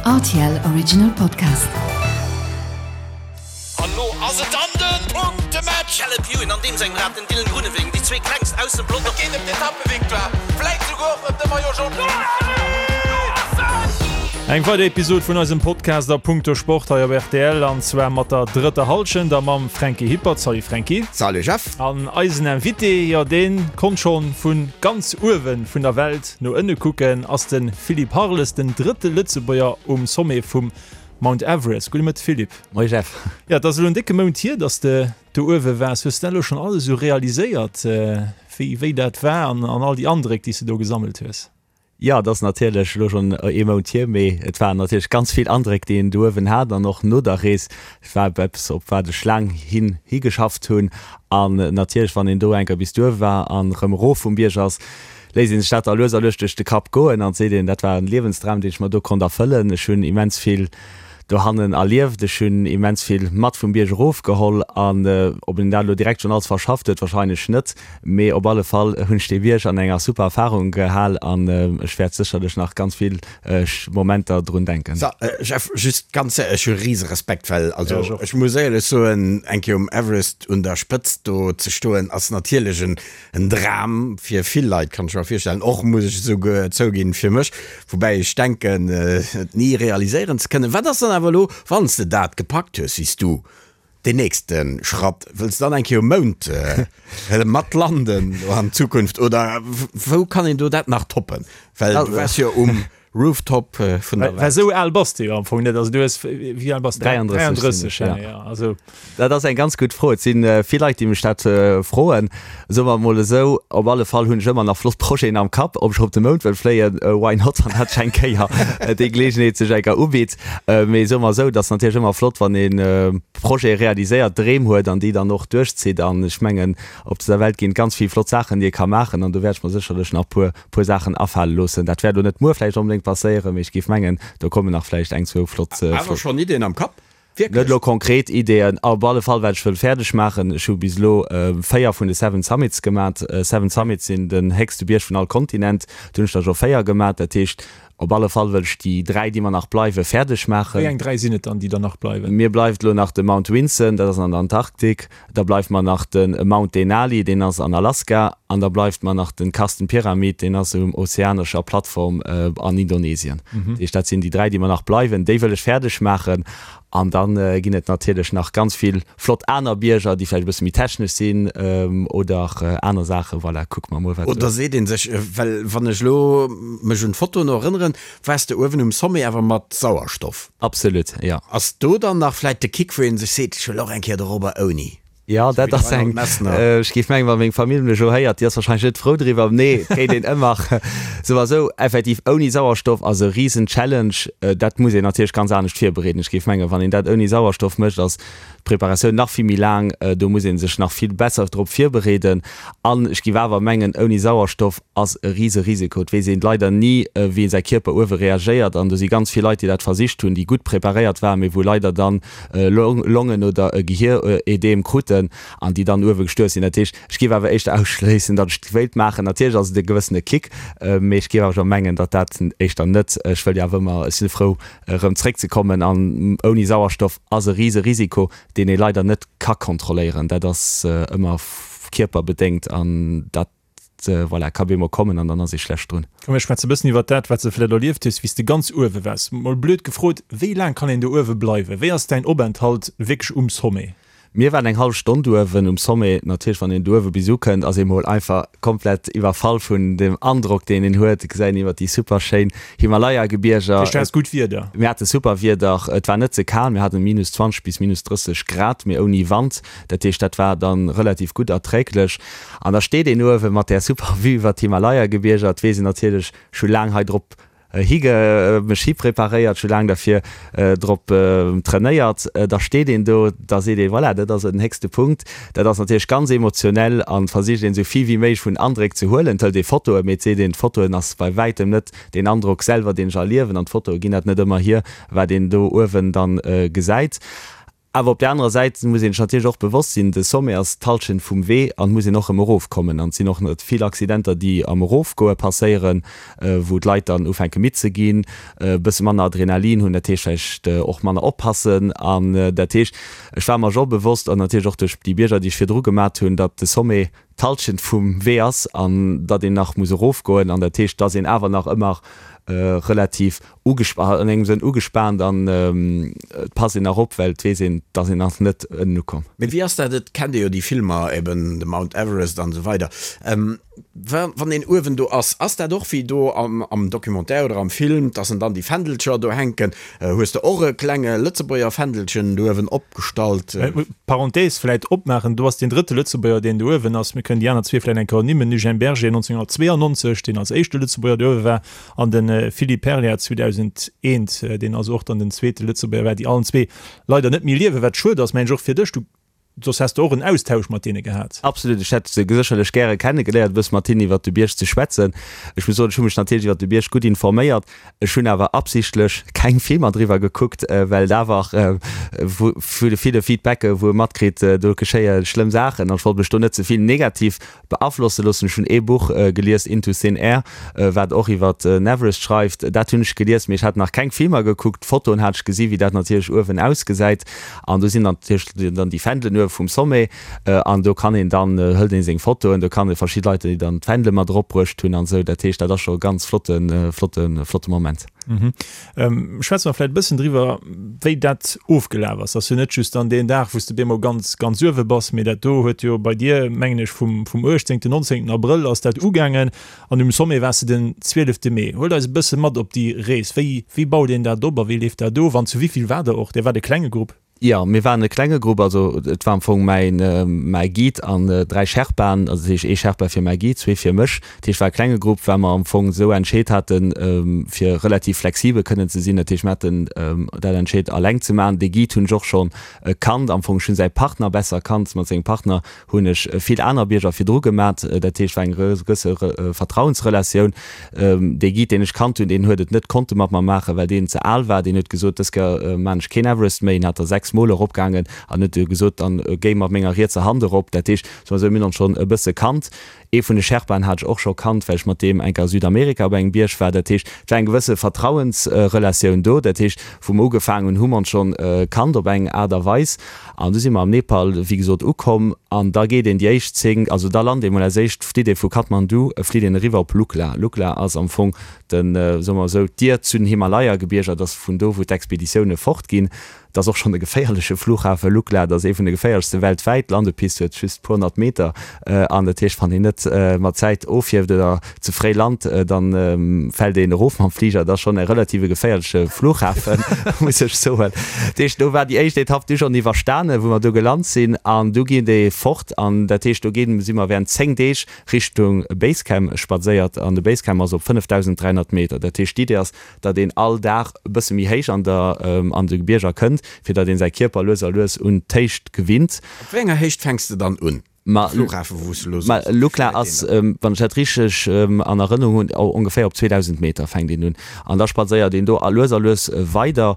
Rtl Original Podcast. An lo ass et dann den Punktematch! Caleb Ewan an deem sengem Rad den Dylan Groenewegen, déi zwee klengst aus dem Pelotong. Et geet ëm d'Etappevictoire, vläit souguer och ëm de Maillot Jaune. Eng weider Episod vun eisem Podcast a Punkto Sport hei op rtl an zwar mat der drëtter Hallschent a mam Franky Hippert. Salut Franky. Salut Jeff. An eisen Invité, jo deen konnt schonn vun ganz uewen vun der Welt no ënne kucken, ass de Philippe Harles, den drëtte Lëtzebuerger um Sommet vum Mount Everest. Gudde Mëtte Philippe. Moie Jeff. Jo, et ass elo en décke Mount hier, dass de do uewe waars. Hues de dat elo schonn alles esou realiséiert, wéi wéi dat war an all déi Andréck, déi s de do gesammelt hues? Jo, et ass natierlech elo schonn ee Mount hier, mee et waren natierlech ganz vill Andréck, déi een do uewen hat an och no der Rees. Et war eppes, op wat ech laang hin higeschafft hunn. An natierlech, wann een do eng Kéier bis duer war an erëm erof vum Bierg ass, léisst ee sech dat da lues a lues duerch de Kapp goen an seet een, dat war en Liewensdram, deen ech mer do konnt erfëllen. Ech hunn immens vill dohannen erlieft, ech hunn immens vill mat vum Bierg erofgeholl an ob een dat elo direkt schonn alles verschafft huet, wahrscheinlech net. Mee op alle Fall hunn ech dee Bierg an enger super Erfahrung gehal an ech wäert sécherlech nach ganz vill Momenter drun denken. So, Jeff, just ganz séier, ech hu rise Respekt, well also ech muss éierlech soen, eng Kéier um Everest un der Spëtzt do ze stoen ass natierlech en en Dram fir vill Leit, kann ech mer virstellen, och muss ech esouguer zouginn fir mech, woubäi ech denken et ni realiséieren ze kënnen. Wat ass dann awer elo, wann s de dat gepackt hues, wéi s du Deen nächste Schratt, wëlls de dann eng Kéier um Mound mat landen an Zukunft oder wou kann een do dat nach toppen? Well du waars jo um Rooftop vun der Well Welt. esou al bass de jo am Fong net. Also du hues, wéi al bass de? 33 sinn 33, ech, ja, ja. ja. Also. Dat ass eng ganz gutt Fro. Et si vill Leit, déi mech dat froen. Soe mer emol esou, op alle Fall hunn ech ëmmer nach flott Projeten am Kapp. Ob ech op de Mound wëll fléien, why not, wann dat eng Kéier déi Geleegenheet sech eng Kéier ubitt. Mee soe mer esou, et ass natierlech ëmmer flott, wann ee Projete realiséiert, Dreem huet an déi dann och duerchzitt. An ech mengen, op dëser Welt ginn et ganz vill flott Saachen, déi ee ka maachen. An do wäert ech mer sécherlech nach e puer Saachen afale loossen. Dat wäert elo net muer vläicht onbedéngt passéieren, mee ech géif mengen, do kommen nach vläicht eng, zwou flott. Awer schonn Iddien am Kapp? Wierklech? Net elo konkret Ideeën, op alle Fall wat ech wëll fäerdeg maachen. Ech hu bis elo 4 vun de Seven Summits gemat. Seven Summits sinn den héchste Bierg vun all Kontinent. Do hunn ech der scho 4 gemat. Dat heescht, op alle Fall wëll ech déi 3, déi mer nach bleiwen, fäerdeg maachen. Wéi eng 3 sinn et dann, déi der nach bleiwen? Mir bleift elo nach de Mount Vinson, dat ass an der Antarktik. Da bleift mer nach de Mount Denali, deen ass an Alaska. An da bleift mer nach de Carstenn Pyramid, deen ass um ozeanescher Plattform an Indonesien. Dat heescht, dat sinn déi 3, déi mer nach bleiwen. Déi wëll ech fäerdeg maachen. An da ginn et natierlech nach ganz vill flott aner Bierger, déi vläicht e bësse méi technesch sinn oder aner Saachen. Voilà, kucke mer mol, wat. Oder seet ee sech, well wann ech elo mech un d'Fotoen erënneren, waars de uewen um Sommet awer mat Sauerstoff. Absolut, jo. Ass do dann nach vläit de Kick, wou ee sech seet, ech wëll och eng Kéier dorobber ouni? Jo, dat ass eng, ech géif mengen, wa meng Famill mech elo héiert, déi ass warscheinlech net frou driwwer. Nee, et kéint een ëmmer souwisou effektiv ouni Sauerstoff ass e risen Challenge. Dat muss een natierlech ganz anescht virbereeden. Ech géif mengen, wann een dat ouni Sauerstoff mécht, ass d'Preparatioun nach vill méi laang. Do muss ee sech nach vill besser drop virbereeden. An ech géif awer mengen, ouni Sauerstoff ass e rise Risiko. Et weess een leider ni, wéi säi Kierper uewe reagéiert. An do si ganz vill Leit, déi dat versicht hunn, déi gutt preparéiert waren, mee wou leider dann Longen oder e Gehirödem kruten an déi dann uewe gestuerf sinn. Dat heescht, ech géif awer éischter ausschléissen, datt ech et wéilt maachen. Natierlech ass et e gewëssene Kick, mee ech géif awer scho mengen, datt dat éischter net, ech wëll jo awer ëmmer, ech si frou erëm zréckzekommen an ouni Sauerstoff ass e rise Risiko, deen ee leider net ka kontrolléieren. Dat ass ëmmer kierperbedéngt an dat voilà, ka bemol kommen an dann ass ee schlecht drun. Komm mir schwätze bëssen iwwert dat, wat s de vläit erlieft hues, wéi s de ganz uewe waars. Mol blöd gefrot, wéi laang kann een do uewe bleiwen? Wéi ass däin Openthalt wierklech um Sommet? Mir waren eng hallef Stonn uewen um Sommet. Natierlech, wann een do uewe bis ukënnt, ass ee mol einfach komplett iwwerfall vun dem Androck, deen een huet. Et gesäit een iwwert déi super schéin Himalaya-Gebierger. Dat heescht, du haas gutt Wieder? Mir hate super Wieder. Et war net ze kal, mir haten minus 20 bis minus 30 Grad, mee ouni Wand. Dat heescht, dat war dann relativ gutt erträglech. An da steet een uewe mat där super Vue iwwert d'Himalaya-Gebierger. Et weess een natierlech, ech hu laang hei drop hige mech hipreparéiert, ech hu laang derfir drop trainéiert. Da steet een do, da seet ee, voilà, dat ass den héchste Punkt. Dat ass natierlech ganz emotionell an versicht een esou vill wéi méiglech vun Andréck ze huelen. Et hëlt ee Fotoen, mee et seet een, d'Fotoen ass bei wäitem net deen Androck selwer, deen ech erliewen an d'Fotoe ginn dat net ëmmer hier, wat een do uewen dann gesäit. Awer op där anerer Säit muss een sech natierlech och bewosst sinn, de Sommet ass d'Hallschent vum Wee an et muss een och erëm erofkommen. An et sinn och net vill Accidenter, déi am Erofgoe passéieren, wou d'Leit dann ufänke midd ze ginn, e bësse manner Adrenalin hunn, dat heescht vläicht och manner oppassen. An dat heescht, ech war mer scho bewosst, an natierlech och duerch déi Bierger, déi ech virdru gemat hunn, datt de Sommet d'Hallschent vum Wee ass an datt een nach muss erofgoen. An dat heescht, datt een awer nach ëmmer relativ an engem Sënn ugespaant an et passt een nach op, well et weess een, et ass een nach net ënnen ukomm. Mee wéi ass dat, et kennt ee jo déi Filmer, eben de Mount Everest an esou weider, wann een uewen do ass, ass dat och wéi do am Documentaire oder am Film, dass en dann déi Fändelcher do hänken? Hues de och e klenge Lëtzebuerger Fändelchen do uewen opgestallt? Parenthèse vläit opmaachen, do ass deen drëtte Lëtzebuerger, deen do uewen ass. Mir kënnen déi aner zwee vläit eng Kéier ernimmen, Eugène Berger 1992, deen als éischte Lëtzebuerger do uewe war, An de Philippe Perlier 2001, deen also och dann den zweete Lëtzebuerger war, déi allen zwee leider net méi liewen, wat schued ass, mengen ech, och fir dech. Du, soss häss de och en Austausch mat deene gehat. Absolut, ech hätt se sécherlech gäre kennegeléiert, e bësse mat hinnen iwwert de Bierg ze schwätzen. Ech muss soen, ech hu mech natierlech iwwert de Bierg gutt informéiert. Ech hunn awer absichtlech keng Filmer driwwer gekuckt, well et awer vu de ville Feedbacke wou e matkritt, do geschéie schlëmm Saachen an ech wollt mech do net ze vill negativ Beaflosse loossen. Ech hunn ee Buch gelies, Into Thin Air, wat och iwwer den Everest schreift. Dat hunn ech gelies, mee ech hat nach keng Filmer gekuckt. Fotoen hat ech gesi wéi dat natierlech uewen ausgesäit. An do sinn natierlech dann déi Fändelen uewe vum Sommet. An do kann een dann, hëlt ee seng Fotoen, do kann ee verschidde Leit, déi dann d'Fändele mat erop bruecht hunn an esou. Dat heescht, dat ass scho e ganz flotte, flotte, flotte Moment. Schwätze mer vläicht e bëssen driwwer, wéi dat ofgelaf ass. Ass jo net just dann deen Dag, wou s de bemol ganz, ganz uewe bass, mee dat do huet jo bei dir, mengen ech, vum, vum 18., 19. Abrëll ass dat ugaangen an um Sommet waars de den 12. Mee. Huelt eis e bësse mat op déi Rees. Wéi, wéi baut een dat op a wéi leeft dat of an zu wéi vill waart der och? Dir waart e klenge Grupp. Jo, mir waren e klenge Grupp, also et war am Fong mäin, mäi Guide an 3 Sherpaen, also dat heescht ee Sherpa fir mäi Guide, zwee fir mech. Dat heescht war e klenge Grupp, well mer am Fong esou entscheet haten, fir relativ flexibel kënnen ze sinn. Dat heescht mir haten dat entscheet alleng ze maachen. Dee Guide hunn ech och schonn kannt, am Fong ech hunn säi Partner besser kannt, mat sengem Partner hunn ech vill aner Bierger virdru gemat. Dat heescht, war eng gewësse Vertrauensrelatioun. Dee Guide, deen ech kannt hunn, deen huet et net konnte mat mer maachen, well deen ze al war. Deen huet gesot, dës Kéier maan ech keen Everest méi. En hat der 6 Mol eropgaangen an huet gesot, dann géi mat menger rietser Hand erop. Dat heescht, soe mer esou, mir hunn ons schonn e bësse kannt. Ee vun de Sherpaen hat ech och scho kannt, well ech mat deem eng Kéier a Südamerika op engem Bierg war. Dat heescht, et war eng gewësse Vertrauensrelatioun do. Dat heescht, wou mer ugefaangen hunn, hu mer ons schonn kannt op eng Aart a Weis. An du si mer am Nepal, wéi gesot, ukomm. An da geet een déi éischt 10, also da lant ee mol als éischt, flitt ee vu Kathmandu, flitt een eriwwer op Lukla. Lukla ass am Fong den, soe mer esou, d'Dier zu den Himalaya-Gebierger. Dat ass vun do, wou d'Expeditioune fortginn. Et ass och schonn e geféierleche Flughafe, Lukla, dat ass ee vun de geféierlechste weltwäit. D'Landepist huet just puer honnert Meter an dat heescht, wann een net mat Zäit ofhieft oder ze fréi lant, da fält een erof mam Fliger. Dat ass schonn e relative geféierleche Flughafen, muss ech soen. Dat heescht, do war déi éischt Etapp du schonn iwwerstanen, wou mer do gelant sinn an du geet ee fort an dat heescht, do ginn, si mer während 10 Deeg Richtung Basecamp spadséiert an de Basecamp ass op 5.300 Meter. Dat heescht, d'Idee ass, datt een all Dag e bësse méi héich an der an de Bierger kënnt, fir datt een säi Kierper lues a lues un d'Héicht gewinnt. Op wéi enger Héicht fänks de dann un? Ma Flughafen, wou s de elo soos, Lukla ass, wann ech dat richteg an Erënnerung hunn, ongeféier op 2.000 Meter fänkt een un. An da spadséiert een do a lues a lues weider.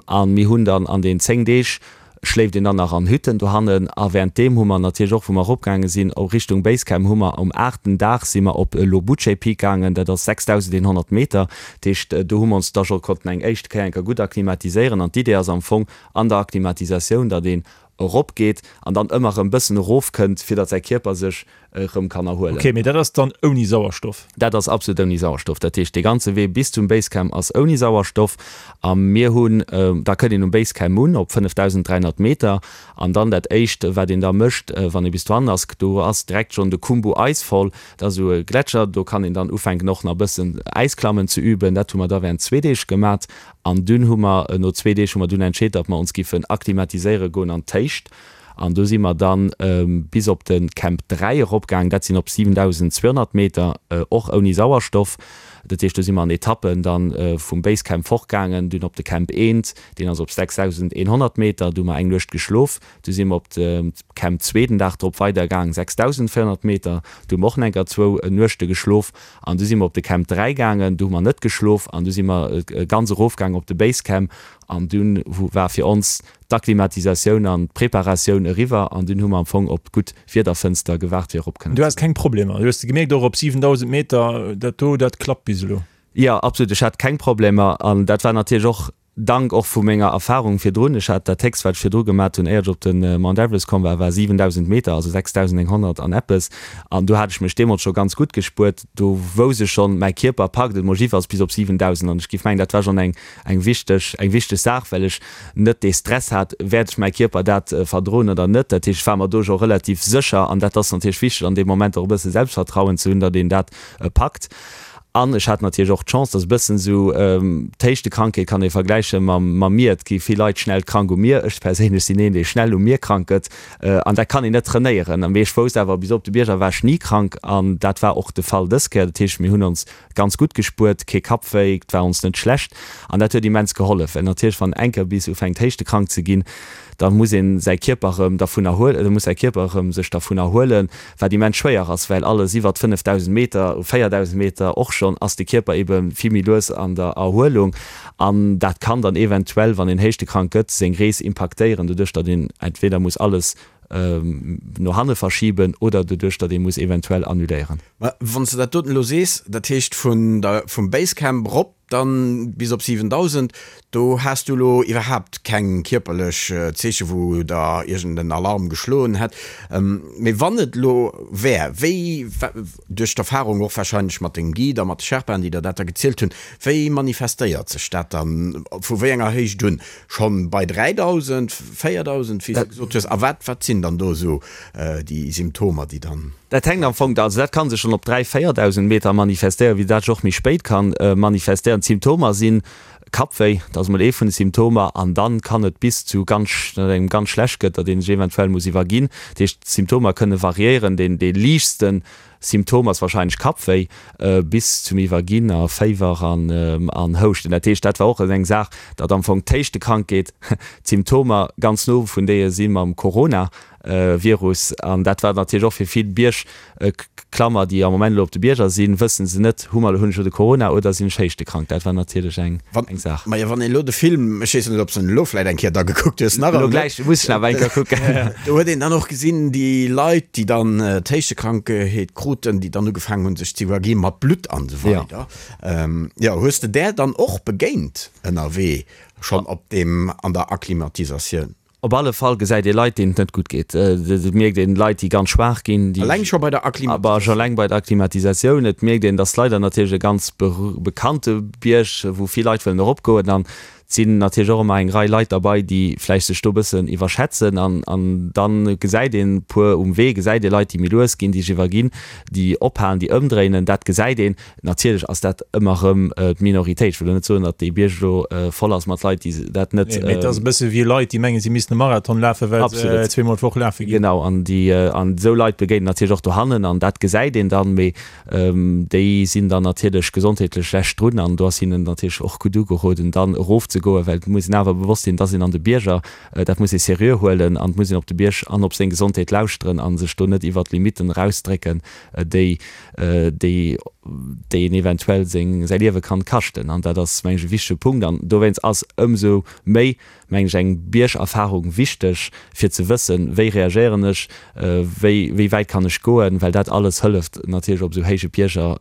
A mir hunn dann an den 10 Deeg schléift een dann nach an Hütten dohannen a währenddeem hu mer natierlech och, wou mer eropgaange sinn Richtung Basecamp, hu mer um aachten Dag si mer op Lobuche Peak gaangen, dat ass 6.100 Meter, dat heescht do hu mer ons da scho konnten eng éischt Kéier eng Kéier gutt akklimatiséieren an d'Idee ass am Fong an der Akklimatisatioun, datt een eropgeet an dann ëmmer erëm bëssen erofkënnt, fir datt säi Kierper sech erëm kann erhuelen. Ok, mee dat ass dann ouni Sauerstoff? Dat ass absolut ouni Sauerstoff. Dat heescht, dee ganze Wee bis zum Basecamp ass ouni Sauerstoff. A mir hunn, da kënnt een um Basecamp un op 5.300 Meter an dann dat éischt, wat een da mécht, wann ee bis dohannen ass, do ass direkt schonn de Khumbu Icefall, dat ass esou e Gletscher, do kann een dann ufänken och nach e bëssen Äisklammen ze üben. Dat hu mer da während zwee Deeg gemat an dunn hu mer, no zwee Deeg hu mer dunn entscheet, datt mer ons giffen akklimatiséiere goen an d'Héicht. An do si mer dann bis op de Camp 3 eropgaangen, dat sinn op 7.200 Meter, och ouni Sauerstoff. Dat heescht, do si mer an Etappen dann vum Basecamp fortgaangen, dunn op de Camp 1, deen ass op 6.100 Meter, do hu mer eng Nuecht geschlof. Du si mer op de Camp 2 den Dag drop weidergaangen, 6.400 Meter, do hu mer och nach enker zwou Nuechte geschlof. An du si mer op de Camp 3 gaangen, do hu mer net geschlof an du si mer ganz erofgaangen op de Basecamp an dunn war fir ons. d'Akklimatisatioun an d'Preparatioun eriwwer an dunn hu mer am Fong op d'gutt Wiederfënster gewaart fir erop kënnen Du has keng Problemer? Du hues de gemierkt och op 7.000 Meter, dat do, dat klappt bis elo? Jo, absolut, ech hat keng Problemer an dat war natierlech och Dank och vu menger Erfahrung virdrun. Ech hat dat héchst wat ech virdru gemat hunn éier ech op de Mount Everest komm war, war 7.000 Meter, also 6.900 an eppes an do hat ech mech deemools scho ganz gutt gespuert. Do wousst ech schonn, mäi Kierper packt et mol jiddefalls bis op 7.000 an ech géif mengen, dat war schonn eng eng wichteg eng wichteg Saach, well ech net dee Stress hat, wäert ech mäi Kierper dat verdroen oder net. Dat heescht, ech war mer do scho relativ sécher an dat ass natierlech wichteg an deem Moment och e bësse Selbstvertrauen ze hunn, datt een dat packt. An ech hat natierlech och d'Chance, datt e bëssen esou d'Héichtekrankheet kann ee vergläiche mam mam Mier. Et gi vill Leit schnell krank um Mier. Ech perséinlech sinn een, dee schnell um Mier krank gëtt an dat kann een net trainéieren. Mee ech wousst awer, bis op de Bierger war ech ni krank an dat war och de Fall dës Kéier. Dat heescht, mir hunn ons Ganz gutt gespuert, kee Kappwéi, 't war ons net schlecht an dat huet immens gehollef, well natierlech wann enker bis ufänkt héischtekrank ze ginn, da muss een säi Kierper erëm dervun erhuelen, da muss säi Kierper erëm sech dervun erhuelen, wat immens schwéier ass, well alles iwwert 5.000 Meter, 4.000 Meter och schonn, ass de Kierper ebe vill méi lues an der Erhuelung an dat kann dann eventuell, wann een héischtekrank gëtt, seng Rees impaktéieren, doduerch datt een entweder muss alles no hanne verschiben oder doduerch, datt ee muss eventuell annuléieren. Mä wann s de dat doten elo sees, dat heescht vun der, vum Basecamp erop dann bis op 7.000, do has du elo iwwerhaapt keng kierperlech Zeeche wou der iergend en Alarm geschloen hätt. Mee wann et elo wär, wéi, duerch d'Erfahrung och wahrscheinlech mat dengem Guide a mat de Sherpaen, déi der dat da gezielt hunn, wéi manifestéiert sech dat dann, vu wéi enger Héicht un? Schonn bei 3.000, 4.000, wéi s de gesot hues? A wat, wat sinn dann do esou déi Symptomer, déi dann. Dat hänkt am Fong, also dat ka sech schonn op 3, 4.000 Meter manifestéieren, wéi dat sech och méi spéit ka manifestéieren. D'Symptomer si Kappwéi, dat ass emol ee vun de Symptomer, an dann kann et bis zu ganz, datt engem ganz schlecht gëtt, datt ee sech eventuell muss iwwerginn. Dat heescht, d'Symptomer kënne variéieren. Deen, dee liichtste Symptom ass wahrscheinlech Kappwéi bis zum Iwwerginn a Féiwer an Houschten. Dat heescht, dat war och eng Saach, datt am Fong d'Héichtekrankheet, d'Symptomer ganz no vun deeë si mam Coronavirus. An dat war natierlech och fir vill Biergklammer, déi am Moment elo op de Bierger sinn, wësse se net, hu mer, hunn ech elo de Corona oder sinn ech héichtekrank? Dat war natierlech eng Saach. Majo, wann een elo de Film, ech weess net, ob s de en elo vläit eng Kéier da gekuckt hues, nach Elo gläich muss ech en awer eng Kéier kucken. Do huet een dann och gesinn, déi Leit, déi dann d'Héichtekrankheet kruten, déi dann ugefaangen hunn, sech ze iwwergi mat Blutt an esou weider. Jo, hues de där dann och begéint ënnerwee, schonn op deem, an der Akklimatisatioun? Op alle Fall gesäit ee Leit, deenen et net gutt geet. Et mierkt een Leit, déi ganz schwaach ginn, déi. Eleng scho bei der Akklimatisatioun. Eleng bei der Akklimatisatioun. Et mierkt een, et ass leider natierlech e ganz bekannte Bierg, wou vill Leit wëllen eropgoen. An Et sinn natierlech och ëmmer eng Rei Leit derbei, déi vläicht sech do e bëssen iwwerschätzen. An, an da gesäit een e puer um Wee, gesäit ee Leit, déi méi lues ginn, déi sech iwwerginn, déi ophalen, déi ëmdréinen. Dat gesäit een. Natierlech ass dat ëmmer erëm d'Minoritéit. Ech wëll elo net soen, datt dee Bierg elo voll ass mat Leit, déi dat net. Nee, mee et ass e bësse wéi Leit, déi mengen, si missten e Marathon lafen, well se zweemol d'Woch lafe ginn. Genau, an déi, an esou Leit begéint een natierlech och dohannen an dat gesäit een dann. Mee Déi sinn dann natierlech gesondheetlech schlecht drun an do ass hinnen natierlech och gutt ugeroden, dann erofzegoen, well et muss een awer bewosst sinn, dass een an de Bierger, dat muss ee seriö huelen an et muss een op de Bierg an op seng Gesondheet lauschteren a sech do net iwwert d'Limitten erausdrécken, déi, déi, déi een eventuell seng, säi Liewe kann kaschten. An dat ass, meng ech, e wichtege Punkt an dowéinst ass ëmsou méi mengen ech, eng Biergerfahrung wichteg, fir ze wëssen, wéi reagéieren ech, wéi, wéi wäit kann ech goen, well dat alles hëlleft natierlech op esou héije Bierger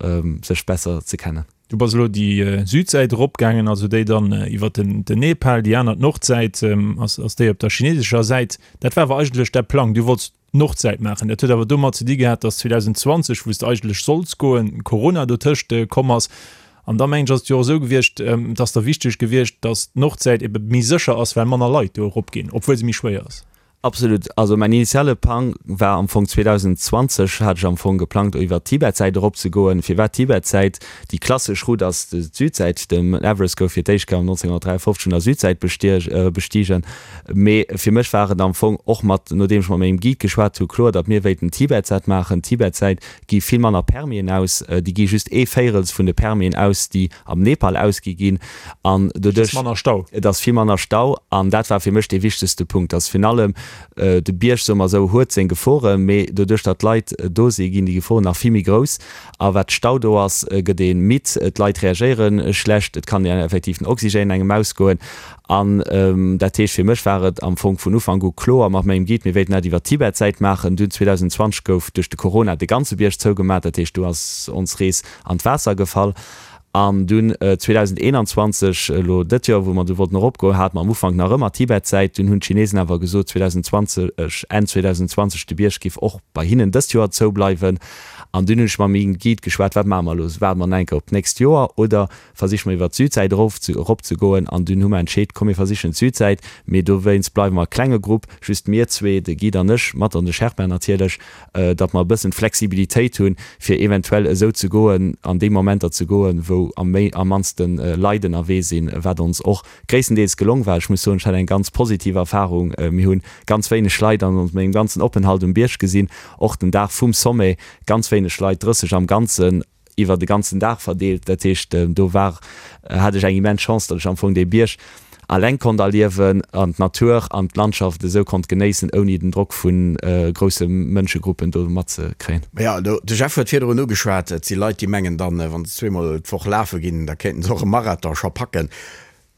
sech besser ze kennen. Du bass elo déi Südsäit eropgaangen, also déi dann iwwer den Nepal, déi aner, d'Nordsäit, ass, ass déi op der chinesescher Säit. Dat war awer eigentlech däi Plang, du wollts d'Nordsäit maachen. Dat huet awer domat ze di gehat, datt 2020, wou s de eigentlech sollts goen, Corona dotëscht komm ass. An da mengen ech, ass et jo och esou gewiescht, et ass der wichteg gewiescht, datt d'Nordsäit ebe méi sécher ass, well manner Leit do eropginn, obwuel se méi schwéier ass. Absolut. Also mäin initiale Plang war am Fong 2020 hat ech am Fong geplangt iwwer d'Tibetsäit eropzegoen. Firwat d'Tibetsäit? Déi klassesch Route ass d'Südsäit. Den Everest gouf fir d'éischt Kéier 1953 vun der Südsäit bestigen. Mee fir mech war et am Fong och mat, nodeem ech mat mengem Guide geschwat hu, kloer, datt mir wéilten Tibetsäit maachen. Tibetsäit gi vill manner Permisen aus, déi gi just ee Véirels vun de Permisen aus, déi am Nepal ausgi ginn. An doduerch. Et ass manner Stau. Et ass vill manner Stau. An dat war fir mech dee wichtegste Punkt, datt virun allem. De Bierg, soe mer esou, huet seng Geforen, mee doduerch datt d'Leit do si ginn déi Geforen nach vill méi grouss. A wat Stau do ass, gëtt ee midd, d'Leit reagéiere schlecht, et kann effektiv den Oxygène engem ausgoen. An dat heescht, fir mech war et am Fong vun Ufank u kloer mat mengem Guide, mir wéilten dat iwwer d'Tibet-Säit maachen. Dunn 2020 gouf duerch de Corona de ganze Bierg zougemat, dat heescht, do ass ons Rees an d'Waasser gefall. An dunn 2021, elo dëtt Joer, wou mer du wollten eropgoen, hate mer am Ufank nach ëmmer d'Tibet-Säit. Dunn hunn d'Chinesen awer gesot, 2020, Enn 2020, de Bierg géif och bei hinnen dëst Joer zoubleiwen. An dunn hunn ech mam Guide geschwat, wat maache mer elo? Waarde mer nach eng Kéier op d'nächst Joer oder versiche mer iwwer d'Südsäit erof ze, eropzegoen? An dunn hu mer entscheet, komm mir versichen d'Südsäit, mee dowéinst bleiwe mer e klenge Grupp, just mir zwee, de Guide an ech, mat an de Sherpa natierlech. datt mer e bëssen d'Flexibilitéit hunn, fir eventuell esou ze goen, an déi Momenter ze goen, wou am méi, am mannste Leit ënnerwee sinn, wat ons och gréisstendeels gelong war. Ech muss soen, ech hat eng ganz positiv Erfahrung. Mir hu ganz wéineg Leit an mengem ganzen Openhalt um Bierg gesinn, och den Dag vum Sommet ganz wéineg Leit, 30 am Ganzen. iwwer de ganzen Dag verdeelt. Dat heescht, do war, hat ech eng immens Chance, datt ech am Fong dee Bierg alleng konnt erliewen an d'Natur an d'Landschaft esou konnt genéissen, ouni den Drock vu grousse Mënschegruppen do matzekréien. Jo, de Jeff huet virdrun ugeschwat, et si Leit, déi mengen dann, wa se zweemol d'Woch lafe ginn, da kéinten se och e Marathon scho packen.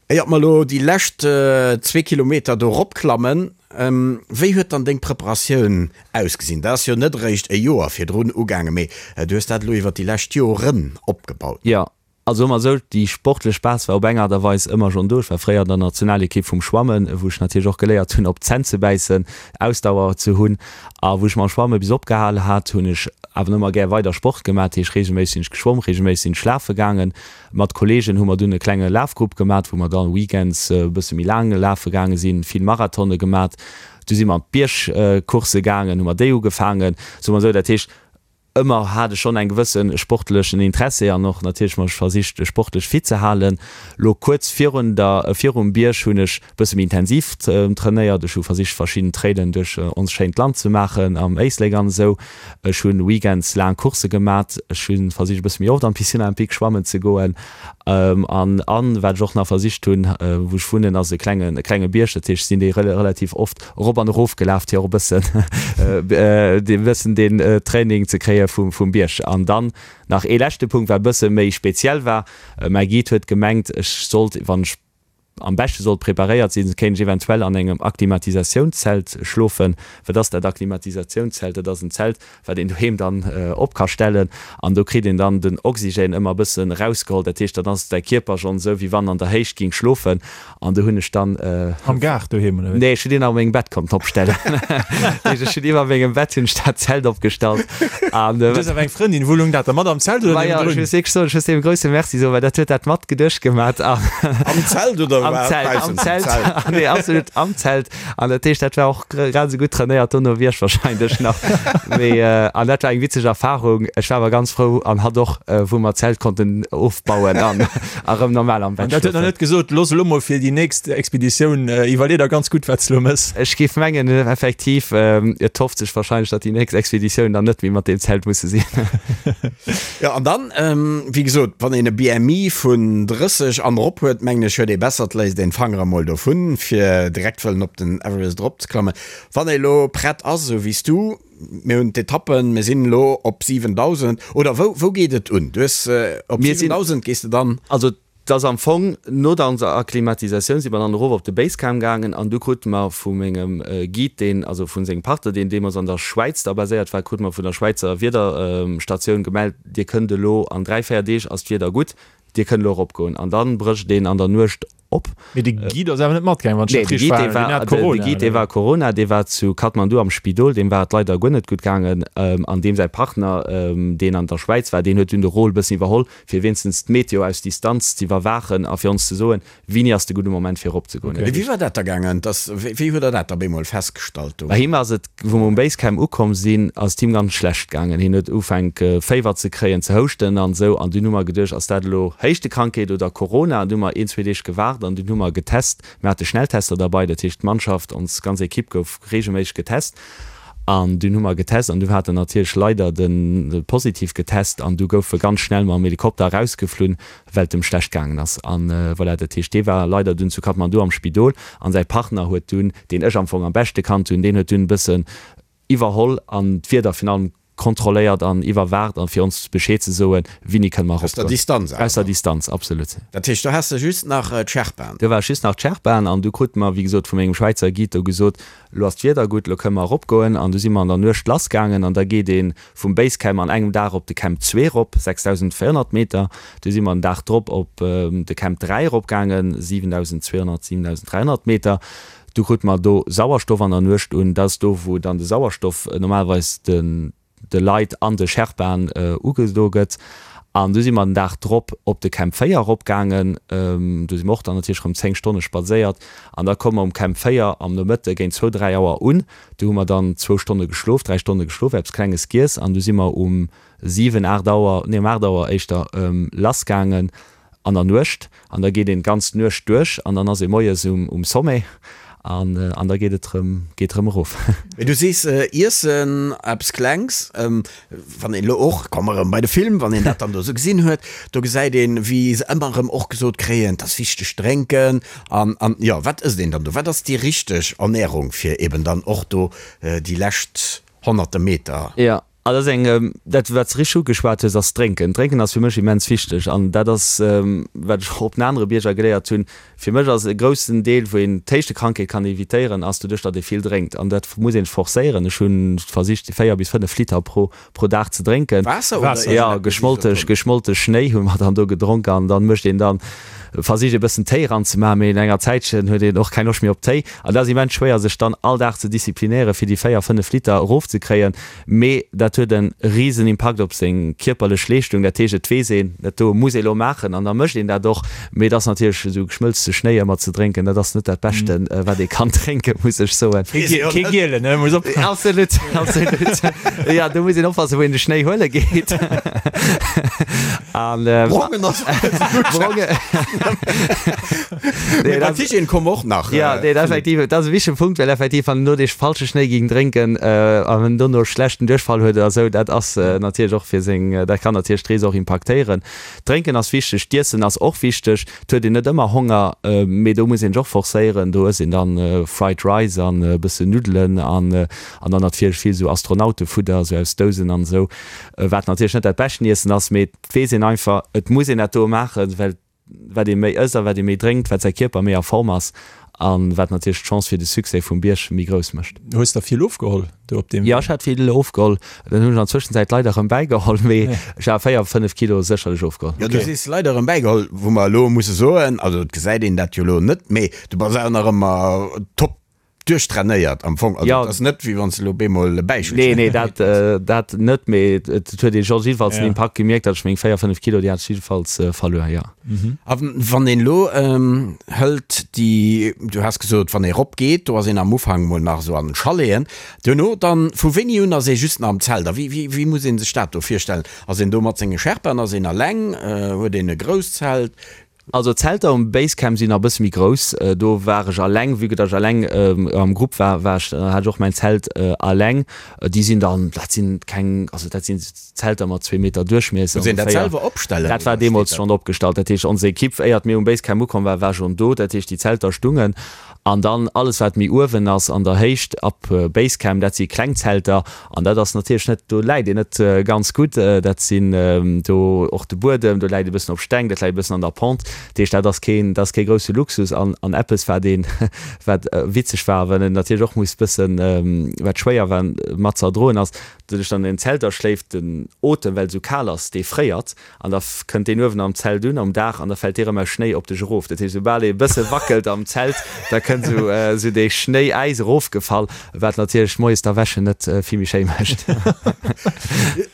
Éiert mer elo déi lescht zwee Kilometer do eropklammen, wéi huet dann deng Preparatioun ausgesinn? Dat ass jo net eréischt e Joer virdrun ugaangen, mee du hues dat elo iwwer déi lescht Joren opgebaut. Jo, also ëmmer esou, déi sportlech Base war op eng Aart a Weis ëmmer schonn do. Ech war fréier an der Nationalekipp vum Schwammen, wou ech natierlech och geléiert hunn, op d'Zänn ze bäissen, Ausdauer ze hunn. A wou ech mam Schwamme bis opgehal hat, hunn ech awer ëmmer gär weider Sport gemaach. Dat heescht, reegelméisseg sinn ech geschwomm, reegelméisseg sinn ech lafe gaangen. Mat Kollegen hu mer dunn e klenge Lafgrupp gemat, wou mer dann weekends e bësse méi laang lafe gaange sinn, vill Marathone gemat. Du si mer an d'Biergcoursse gaangen, hu mer déi ugefaangen, soe mer esou. Dat heescht, ëmmer hat ech schonn eng gewësse sportlechen Interessi an och natierlech mech versicht, sportlech fit ze halen. Lo kuerz virun der, virum Bierg hunn ech e bësse méi intensiv trainéiert. Ech hu versicht, verschidden Trailen duerch ons schéint Land ze maachen, am Éislek an esou. Ech hunn weekends laang Coursse gemat. Ech hunn versicht e bësse méi oft an d'Piscine olympique schwammen ze goen. An an wat ech och nach versicht hunn, wou ech wunnen ass e klengen e klenge Bierg, dat heescht ech sinn dee relativ oft erop an erof gelaf fir och e bëssen e bëssen deen Training ze kréie vum vum Bierg. An dann nach ee leschte Punkt wat e bësse méi speziell war, mäi Guide huet gemengt ech sollt wann ech am beschte sollt preparéiert sinn, kéint ech eventuell an engem Akklimatisatiounszelt schlofen. Wat ass dat Akklimatisatiounszelt? Dat ass en Zelt, wat een doheem dann op ka stellen an do kritt een dann den Oxygène ëmmer e bëssen erausgeholl. Dat heescht, dann ass däi Kierper schonn esou, wéi wann en an der Héicht géing schlofen. An do hunn ech dann. Am Gaart doheem, oder wéi? Nee, ech hunn deen a mengem Bett konnten opstellen. Dat heescht, ech hunn iwwer mengem Bett hunn ech dat Zelt opgestallt an. Du hues awer eng Frëndin, wou loung dat da mat am Zelt oder niewendrun? Ech muss wierklech soen, ech muss deem e grousse Merci soen, well dat huet dat mat geduecht gemat. Am Zelt oder am Zelt, am Zelt, nee, absolut am Zelt. An dat heescht, dat war och grad esou gutt trainéiert dono wéi ech wahrscheinlech nach. Mee an dat war eng witzeg Erfahrung. Ech war awer ganz frou an hatt och, wou mer d'Zelt konnten ofbauen an erëm normal am Bett schlofen. An dat huet nach net gesot, looss elo mol fir déi nächst Expeditioun, iwwerlee der ganz gutt, wat s de elo mëss. Ech géif mengen, effektiv, et hofft sech wahrscheinlech, datt déi nächst Expeditioun dann net méi mat deem Zelt musse sinn. Jo, an dann, wéi gesot, wann een e BMI vun 30 an erop huet, mengen ech, huet ee besser, et léisst een d'Fangere emol dovun, fir direkt wëllen op den Everest eropzeklammen. Wann ee lo prett ass, esou wéi s du, mir hunn d'Etappen, mir sinn elo op 7.000, oder wou, wou geet et un? Du hues, op 7.000 gees de dann? Also 't ass am Fong, no der onser Akklimatisatioun si mer dann erof op de Basecamp gaangen an du krute mer vu mengem Guide, deen, also vu sengem Partner, deen deemools an der Schwäiz da baséiert war, krute mer vun der Schwäizer Wiederstatioun gemellt, Dir kënnt elo, an 3, 4 Deeg ass d'Wieder gutt, Dir kënnt elo eropgoen. An dann brécht een an der Nuecht op. Mee de Guide ass awer net matgaangen, wann ech dat richteg verhalen hunn. Deen hat Corona, De Guide, dee war Corona, dee war zu Kathmandu am Spidol, deem war et leider guer net gutt gaangen. An deem säi Partner, deen an der Schwäiz war, deen huet dunn de Rôle bëssen iwwerholl, fir wéinstens d'Meteo aus Distanz z'iwwerwaachen a fir ons ze soen, wéini ass de gudde Moment fir eropzegoen. Mee wéi war dat da gaangen? Dass, wéi huet der dat da bemol festgestallt do? Bei him ass et, wou mer um Basecamp ukomm sinn, ass et him ganz schlecht gaangen. Hien huet ufänk Féiwer ze kréien, ze houschten an esou. An dunn hu mer geduecht, ass dat elo Héichtekrankheet oder Corona? An du hu mer een, zwee Deeg gewaart an dunn hu mer getest. Mir hate Schnelltester derbei, dat heescht d'Mannschaft, ons ganz Ekipp gouf reegelméisseg getest. An dunn hu mer getest an du hat en natierlech leider de positiv getest an du gouf e ganz schnell mam Helikopter erausgeflunn, well et em schlecht gaangen ass. An voilà, dat heescht, dee war leider dunn zu Kathmandu am Spidol an säi Partner huet dunn, deen ech am Fong am beschte kannt hunn, deen huet dunn e bëssen iwwerholl an d'Wieder virun allem kontrolléiert an iwwerwaacht an fir ons Bescheed ze soen, wini kënne mer Aus der eropgoen. Distanz Aus der awer. Distanz, absolut. Dat heescht, do has de just nach d'Sherpaen? Do war just nach d'Sherpaen an du krute mer, wéi gesot, vu mengem Schwäizer Guide do gesot, Elo ass d'Wieder gutt, elo kënne mer eropgoen. An du si mer an der Nuecht lassgaangen an da geet ee vum Basecamp an engem Dag op de Camp 2 erop, 6.400 Meter. Du si mer den Dag drop op de Camp 3 eropgaangen, 7.200, 7.300 Meter. Du krute mer do Sauerstoff an der Nuecht un. Dat ass do, wou dann de Sauerstoff normalerweis de Leit an de Sherpaen ugedo gëtt. An du si mer den Dag drop op de Camp 4 eropgaangen. Do si mer och dann natierlech erëm 10 Stonne spadséiert. An da komme mer um Camp 4 am Nomëtte géint zwou, dräi Auer un. Do hu mer dann zwou Stonne geschlof, dräi Stonne geschlof, eppes Klenges giess. An du si mer um 7, 8 Auer, nee um 8 Auer éischter lassgaangen. an der Nuecht an da geet een d'ganz Nuecht duerch an dann ass ee moies um Sommet an an da geet et rëm geet rëm erof. Mee du sees iessen eppes Klengs, wann een elo och, komme mer erëm bei de Film, wann een dat dann do esou gesinn huet, do gesäit een wéi se ëmmer erëm och gesot kréien, et ass wichteg drénken an an jo wat ësst een dann do, wat ass déi richteg Ernährung fir eben dann och do déi lescht honnerte Meter? Jo, Also dat ass eng, dat wat s de richteg ugeschwat hues, ass d'Drénken. D'Drénken ass fir mech immens wichteg an dat ass, wat ech och op den anere Bierger geléiert hunn. Fir mech ass e groussen Deel, wou een d'Héichtekrankheet kann evitéieren, ass doduerch, datt ee vill drénkt. An dat muss een forcéieren. Ech hu versicht 4 bis 5 Liter pro pro Dag ze drénken. Waasser oder Waasser? Jo, geschmollte geschmollte Schnéi hu mer dann do gedronk an dann mécht een dann, versicht ee bëssen Téi eranzemaachen, mee no enger Zäitchen huet een och keng Loscht méi op Téi. An dat ass immens schwéier, sech dann all Dag ze disziplinéieren, fir déi 4, 5 Liter erofzekréien. Mee dat huet e risen Impakt op seng kierperlech Leeschtung. Dat heescht, et weess een, dat do muss ee lo maachen an da mécht een dat och. Mee et ass natierlech esou geschmëlzte Schnéi ëmmer ze drénken, dat ass net dat Beschten, wat ee kann drénken, muss ech soen. Kee gielen, ne? Muss oppassen. Absolut, absolut. Jo, do muss een oppassen, wou een de Schnéi huele geet. An. Brongen ass och net esou gutt. Brongen. Mee bei d'Hygiène komme mer och nach. Jo, nee, effektiv, dat ass e wichtege Punkt, well effektiv, wann een do dee falsche Schnéi géing drénken an en dono schlechten Duerchfall huet oder esou, dat ass natierlech och fir seng, dat kann natierlech d'Rees och impaktéieren. Drénken ass wichteg, d'Iessen ass och wichteg. Et huet een net ëmmer Honger, mee do muss een sech och forcéieren. Do ësst een dann Fried Rice an e bëssen Nuddelen an an dann natierlech vill esou Astronautefudder, esou aus Dousen an esou, wat natierlech net dat beschten Iessen ass, mee et weess een einfach, et muss een dat do maachen, well Wat ee méi ësst a wat ee méi drénkt, wat säi Kierper méi a Form ass a wat natierlech d'Chance fir de Succès vum Bierg méi grouss mécht. Hues der vill ofgeholl do op deem Jo, ech hat vill ofgeholl. Dann hunn ech an Zwëschenzäit leider erëm bäigeholl, mee ech hat 4, 5 Kilo sécherlech ofgeholl. Jo, du sees leider erëm bäigeholl, wou mer elo musse soen, also et gesäit een dat jo elo net, mee du bass awer nach ëmmer top Duerchtrainéiert am Fong, also et ass net wéi wann s de elo bemol e Bäichel Nee, nee, dat, dat net, mee et huet ee scho jiddefalls den Impakt gemierkt, datt ech meng 4, 5 Kilo, déi hat ech jiddefalls verluer, jo. A wann een elo hëlt déi, du has gesot, wann ee rop geet, do ass een am Ufank mol nach esou an den Chaleten, duerno dann, vu wéini un ass ee just nach am Zelt a wéi, wéi, wéi muss ee sech dat do virstellen? Ass een do mat senge Sherpaen, ass een eleng, huet een e grousst Zelt? Also d'Zelter um Basecamp sinn nach e bësse méi grouss. Do war ech alleng, vue que datt ech alleng am Grupp war, war ech, hat ech och mäin Zelt alleng. Déi sinn dann, dat sinn keng, also dat sinn Zelter mat zwee Meter Duerchmiesser Muss een dat ongeféier. selwer opstellen Dat war oder steet deemools dat? schonn opgestallt. Dat heescht, ons Equipe, éiert mir um Basecamp ukomm war, war schonn do. Dat heescht, déi Zelter stungen. An dann alles wat méi uewen ass an der Héicht, ab Basecamp, dat si kleng Zelter. An dat ass natierlech net, do läit een net ganz gutt. Dat sinn do och de Buedem, do läit e bëssen op Steng, dat läit e bëssen an der Pente. Dat heescht, dat ass keen, dat ass kee grousse Luxus. An, an eppes wat een, wat witzeg war, well een natierlech och muss bëssen, wat schwéier war mat ze erdroen ass, doduerch datt een an den Zelter schléift, den Otem, well et esou kal ass, dee fréiert. An da kënnt deen uewen am Zelt un, am Daach, an da fält dee rëm aus Schnéi op dech erof. Dat heescht, soubal ee e bësse wackelt am Zelt, da kënnt esou esou dee Schnéi-Äis erofgefall, wat natierlech moies d'Erwächen net vill méi schéi mécht.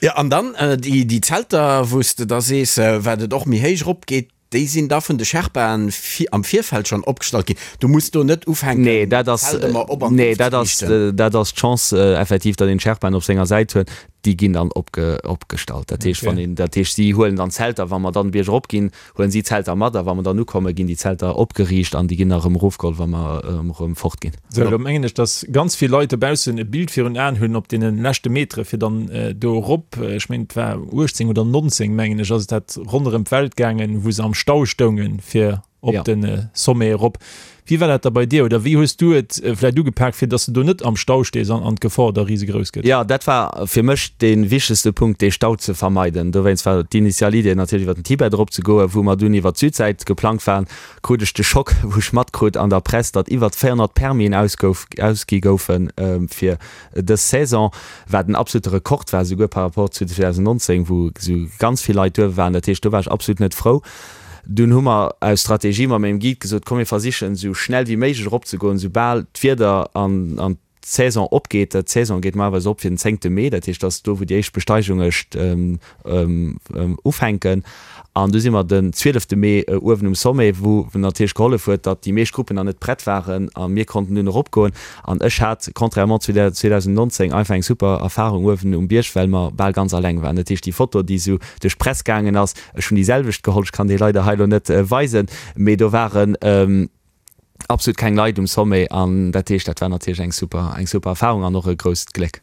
Jo, an dann déi Zelter, wou s de da sees, wat et och méi héich erop geet. Déi sinn da vun de Sherpaen am Virfeld schonn opgestallt ginn. Du muss do net ufänken, Nee, dat ass, d'Zelt ëmmer op an nee, dat ass, ofzeriichten. dat ass d'Chance effektiv, datt een d'Sherpaen op senger Säit huet. Déi ginn dann opge, opgestallt. Dat heescht, wann Okay. een, dat heescht, si huelen dann d'Zelter, wa mer dann de Bierg erop ginn, huelen si d'Zelter mat a wa mer dann ukommen, ginn déi Zelter opgeriicht an déi ginn da erëm erofgeholl, wa mer erëm fort ginn. Sou, elo mengen ech, dass ganz vill Leit dobaussen e Bild virun Aen hunn op deene leschte Metere fir dann do erop, ech mengen et war 18 oder 19, mengen ech, ass et dat ronderëm d'Welt gaangen, wou se am Stau stoungen, fir op de Sommet erop. Wéi war dat da bei dir oder wéi hues du et vläicht ugepak, fir dass de do net am Stau stees an an d'Gefor da risegrouss gëtt? Jo, dat war fir mech dee wichtegste Punkt, dee Stau ze vermeiden. Dowéinst war d'initial Idee natierlech iwwer den Tibet erop ze goen, wou mer dunn iwwer d'Südsäit geplangt waren. Krut ech de Schock, wou ech matkrut an der Press, datt iwwert 400 Permisen ausgouf, ausgi goufe fir dës Saison, wat en absolute Rekord war, souguer par rapport zu 2019, wou esou ganz vill Leit duerf waren. Dat heescht, do war ech absolut net frou. Dunn hu mer aus Strategie mat mengem Guide gesot, komm mir versichen esou schnell wéi méiglech eropzegoen, soubal d'Wieder an an d'Saison opgeet. D'Saison geet normalerweis op fir den zéngte Mee, dat heescht, dat ass do wou déi éischt Besteigunge ufänken. An du si mer den zwielefte Mee uewen um Sommet, wou natierlech gehollef huet, datt déi meescht Gruppen nach net prett waren a mir konnten dunn eropgoen. An ech hat, contrairement zu der 2019, einfach eng super Erfarung uewen um Bierg, well mer bal ganz alleng waren. Dat heescht, déi Foto, déi esou duerch d'Press gaangen ass, ech hunn déi selwecht geholl, ech kann déi leider hei elo net weisen, mee do waren absolut keng Leit um Sommet an dat heescht, dat war natierlech eng super, eng super Erfarung an och e grousst Gléck.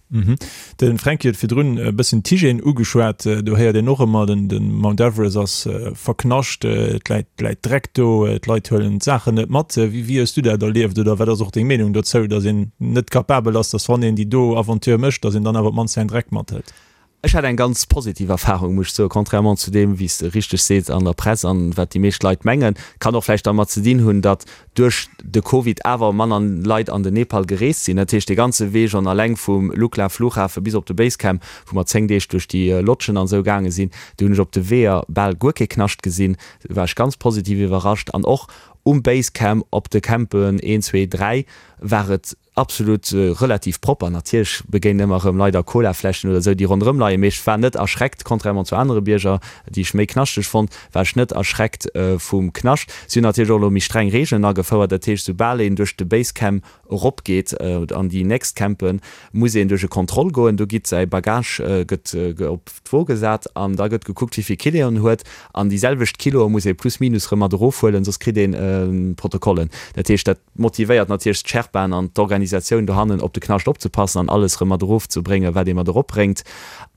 De Fränki huet virdrun e bëssen d'Hygiène ugeschwat. Do héiert een och ëmmer, den de Mount Everest ass verknascht, et läit, läit Dreck do, d'Leit huelen d'Saachen net mat. Wéi, wéi hues du dat erlieft oder wat ass och deng Meenung dozou, datt een net capabel ass, datt wann een déi do Aventure mécht, datt een dann awer op d'mannst säin Dreck mathëlt? Ech hat eng ganz positiv Erfahrung, muss ech soen, contrairement zu deem, wéi s de richteg sees, an der Press an wat déi meescht Leit mengen. Kann och vläicht dermat ze dinn hunn, datt duerch de Covid awer manner Leit an den Nepal gereest sinn. Dat heescht, dee ganze Wee schonn alleng vum Lukla Flughafe bis op de Basecamp, wou mer 10 Deeg duerch déi Lodgen an esou gaange sinn, do hunn ech op de Weeër bal guer kee Knascht gesinn. Do war ech ganz positiv iwwerrascht. An och um Basecamp, op de Campen 1, 2, 3 war et Absolut relativ propper. Natierlech begéinen ëmmer erëm leider Colafläschen oder esou, déi ronderëm leien, mee ech war net erschreckt, contrairement zu anere Bierger, déi ech méi knaschteg fonnt, war ech net erschreckt vum Knascht. Si hunn natierlech och elo méi streng Reegelen agefouert, dat heescht, soubal een duerch de Basecamp eropgeet an déi nächst Campen, muss een duerch e Kontroll goen. Do gitt säi Bagage gëtt op d'Wo gesat an da gëtt gekuckt, wéi vill Kiloen en huet an déi selwecht Kiloe muss ee plus minus erëm mat erofhuelen, soss kritt een Protokollen. Dat heescht, dat. Motivéiert natierlech d'Sherpaen an d'Organisatioun dohannen op de Knascht opzepassen an alles erëm mat erof ze bréngen, wat ee mat erop bréngt.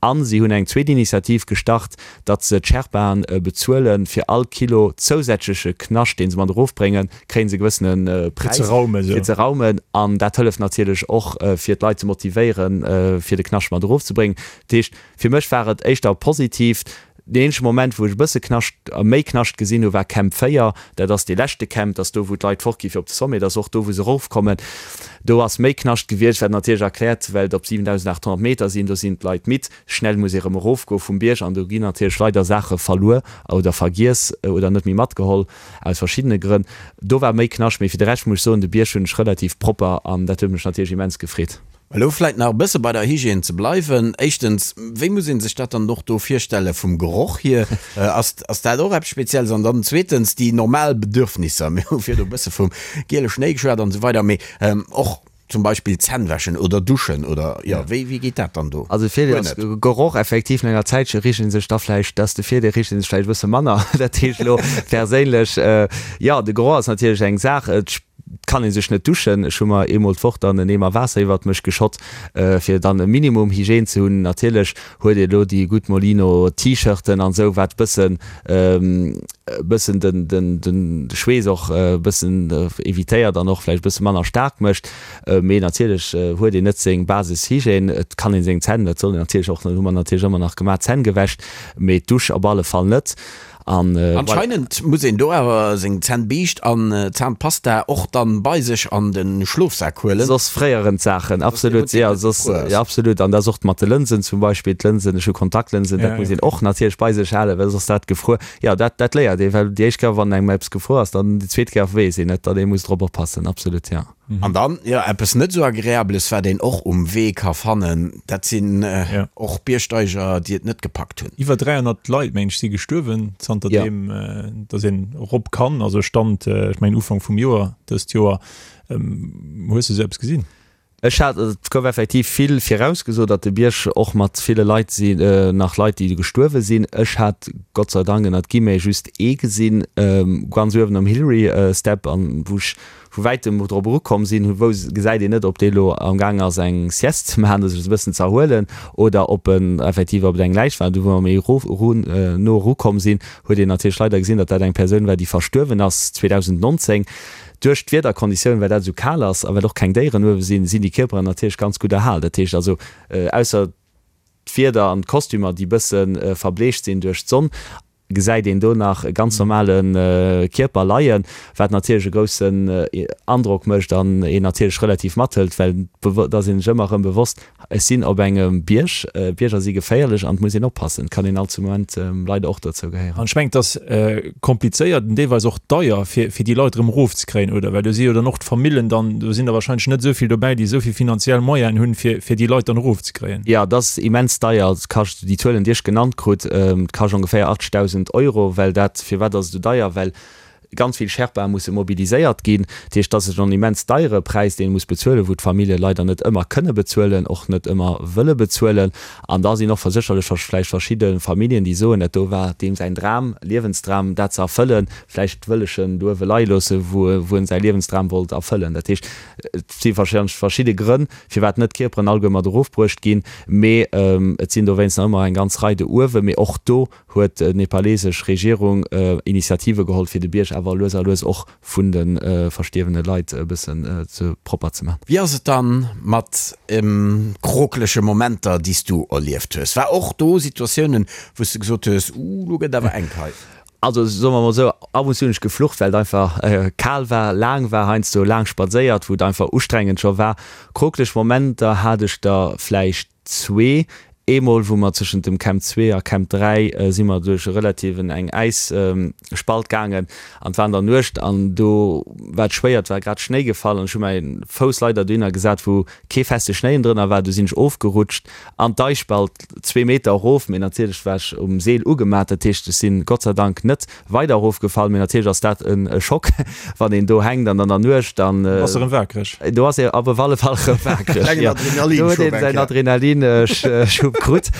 An si hunn eng zweet Initiativ gestart, datt se d'Sherpaen bezuelen, fir all Kilo zousätzleche Knascht, dee se mat erof bréngen, kréie se e gewëssene Präis fir ze raumen. An dat hëlleft natierlech och, fir d'Leit ze motivéieren, fir de Knascht mat erof ze bréngen. Dat heescht, fir mech war et éischter positiv. Deen eenzege Moment, wou ech e bësse Knascht, méi Knascht gesinn hu war Camp 4. Dat ass dee leschte Camp, dat ass do, wou d'Leit fortgi fir op de Sommet, dat ass och do, wou se erofkommen. Do ass méi Knascht gewiescht, wat natierlech erkläert, well et op 7.800 Meter sinn. Do sinn d'Leit midd, schnell muss ee rëm erofgoe vum Bierg an do ginn natierlech leider Saache verluer oder vergiess oder net méi matgeholl, aus verschiddene Grënn. Do war méi Knascht, mee fir de Rescht muss ech soen, de Bierg hunn ech relativ propper an dat huet mech natierlech immens gefreet. Elo vläit nach e bësse bei der Hygiène ze bleiwen. Éischtens, wéi muss ee sech dat dann och do virstelle vum Geroch hier? Ass, ass dat och eppes Spezielles? An dann zweetens, déi normal Bedürfnisser. Mir hu virdu e bësse vum giele Schnéi geschwat an esou weider, mee och zum Beispill Zänn wäschen oder duschen oder, jo, wéi, wéi geet dat dann do? Also de Virdeel ass, Geroch effektiv, no enger Zäitche richt ee sech da vläicht, dat ass de Virdeel, richt ee sech vläicht e bësse manner. Dat heescht elo perséinlech, jo, de Geroch ass natierlech eng Saach. Et kann ee sech net duschen. Ech hu mer eemol d'Woch dann en Eemer Waasser iwwert mech geschott, fir dann e Minimum Hygiène ze hunn. Natierlech huet ee lo déi gutt Molino T-Shirten an esou, wat bëssen bëssen den den den Schweess och e bëssen evitéiert an och vläicht e bësse manner staark mécht. Mee natierlech huet een net seng Basishygiène. Et kann een seng Zänn, dat soll een natierlech och, hu mer natierlech ëmmer nach gemaach, d'Zänn gewäscht, mee d'Dusch op alle Fall net. An voilà. Anscheinend muss een do awer seng Zännbiischt an Zahnpasta och dann bei sech an den Schlofsak huelen. Soss fréieren d'Saachen, absolut, jo, soss, jo, absolut. An dat ass och mat de Lënsen zum Beispill, d'Lënsen, ech hu Kontaktlënsen, dat muss een och natierlech bei sech halen, well soss dat gefruer, jo, dat, dat léiert ee, well déi éischt Kéier, wann engem eppes gefruer ass, dann déi zweet Kéier weess een et, datt ee muss drop oppassen, absolut, jo. An dann, jo, eppes net esou Agreabeles, wat een och um Wee ka fannen, dat sinn och Biergsteiger, déi et net gepackt hunn. Iwwer 300 Leit, mengen ech, si gestuerwen zanterdeem, datt een erop kann. Also Stand, ech mengen Ufank vum Joer, dëst Joer. Hues de esou eppes gesinn? Ech hat, et gouf effektiv vill virausgesot, datt de Bierg och mat ville Leit si nach Leit, déi gestuerwe sinn. Ech hat Gott sei Dank ënnert Guillemets just ee gesinn, ganz uewen um Hillary Step, an wou ech vu wäitem drop erukomm sinn, wou gesäit een net, ob dee lo am Gaang ass eng Sieste ze maachen, sech e bëssen ze erhuelen, oder ob en effektiv op et eng Läich war. Du wou mer méi erof erun no erukomm sinn, huet een natierlech leider gesinn, datt dat eng Persoun war, déi verstuerwen ass 2019. Duerch d'Wiederkonditiounen, well dat esou kal ass a well och keng Déieren uewe sinn, sinn déi Kierperen natierlech ganz gutt erhal. Dat heescht also, ausser d'Wieder an d'Kostümer, déi bësse verbleecht sinn duerch d'Sonn, gesäit een do nach e ganz normale Kierper leien, wat natierlech e groussen Androck mécht an een natierlech relativ mathëlt, well et ass een sech ëmmer erëm bewosst, Ech sinn op engem Bierg, Bierger si geféierlech an et muss een oppassen. Et kann een all zu Moment leider och dozou gehéieren. An ech mengen, et ass komplizéiert an deelweis och deier, fir fir déi Leit erëm erofzekréien, oder? Well do si jo dann och d'Famillen dann, do sinn der wahrscheinlech net esou vill dobäi, déi esou vill finanziell Moyenen hunn, fir fir déi Leit dann erofzekréien. Jo, et ass immens deier. Et kascht, déi Zuelen, déi ech genannt krut, et kascht ongeféier 80.000 Euro, well dat, firwat ass et esou deier? Well Ganz vill Sherpae musse mobiliséiert ginn. Dat heescht, dat ass en immens deiere Präis, deen ee muss bezuelen, wou d'Famillje leider net ëmmer kënne bezuelen, och net ëmmer wëlle bezuelen. An da sinn och sécherlech vläicht verschidde Familljen, déi soen, dat do war deem säin Dram, Liewensdram, dat ze erfëllen, vläicht wëll ech en do uewe leie loosse, wou wou en säi Liewensdram wollt erfëllen. Dat heescht, et si warscheinlech verschidde Grënn, firwat net d'Kierperen alleguer mat erofbruecht ginn, mee et sinn dowéinst nach ëmmer eng ganz Rei do uewen. Mee och do huet d'nepalesesch Regierung Initiative geholl, fir de Bierg awer lues a lues och vun de verstierwene Leit e bëssen ze propper ze man. Wéi ass et dann mat krokelege Momenter, déi s du erlieft hues? War och do Situatiounen, wou s du gesot hues, Uh, lo gëtt awer enk hei? Also soe mer mol esou, ab und zu hunn ech geflucht, well et einfach kal war, laang war, heiansdo laang spadséiert, wou et einfach ustrengend scho war. Krokeleg Momenter hat ech der vläicht Zwee. Eemol wou mer zwëschent dem Camp 2 a Camp 3 si mer duerch e relativen eng Äisspalt gaangen an et war an der Nuecht an do war et schwéier, et war grad Schnéi gefall an ech hu mäi Fouss leider dohinner gesat wou kee feste Schnéi drënner war. Du sinn ech ofgerutscht an d'Äisspalt zwee Meter erof, mee natierlech war ech um Seel ugemat, dat heescht ech sinn Gott sei Dank net Weider erofgefall, mee natierlech ass dat e Schock, wann een do hänkt an an der Nuecht an. Do bass de erëm waakreg. Do ass ee op alle Fall erëm waakreg, jo. Do huet een säin Adrenalinschub krut.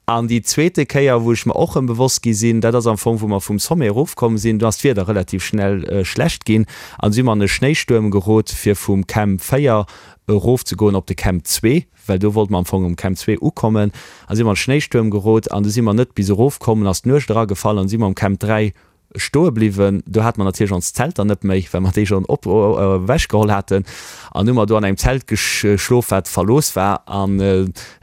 An déi zweete Kéier, wou ech mer och erëm bewosst gi sinn, dat ass am Fong, wou mer vum Sommet erofkomm sinn, do ass d'Wieder relativ schnell schlecht ginn an du si mer an e Schnéistuerm gerot, fir vum Camp 4 erofzegoen op de Camp 2. well do wollte mer am Fong um Camp 2 ukommen a si mer an Schnéistuerm gerot an du si mer net bis erof komm, an ass d'Nuecht eragefall an si mer um Camp 3 stoe bliwwen. Do hate mer natierlech ons Zelter net méi, well mer déi schonn op ewech geholl haten an hu mer do an engem Zelt geschlof, wat verlooss war an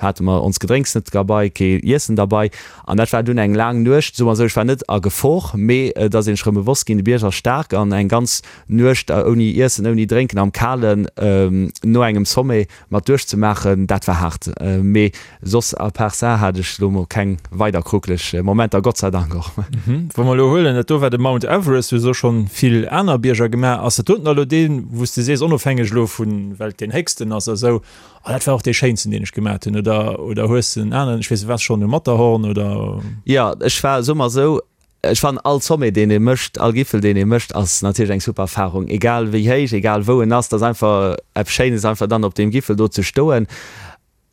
hate mer ons Gedrénks net derbei, kee Iessen derbei an dat war dunn eng laang Nuecht. Soe mer esou, ech war net a Gefor, mee et ass een sech erëm bewosst ginn, de Bierg ass staark an eng ganz Nuecht ouni Iessen, ouni Drénken am Kalen no engem Sommet mat duerchzemaachen, dat war haart. Mee soss à part ça hat ech lo mol keng weider kruckeleg Momenter, Gott sei Dank och. Wa mer elo huelen, dat do war de Mount Everest, du hues och schonn vill aner Bierger gemaach, ass dat doten elo deen, wou s de sees, onofhängeg elo vun, well et deen héchsten ass a sou, oh dat war och dee schéinsten, deen ech gemaat hunn, oder, oder hues de en aneren, ech weess net, waars schonn um Matterhorn oder? Jo, ech war, soe mer esou, Ech fannen all Sommet deen ee mécht, all Gipfel deen ee mécht ass natierlech eng super Erfahrung, egal wéi héich, egal wou en ass, et ass einfach eppes Schéines einfach dann op deem Gipfel do ze stoen.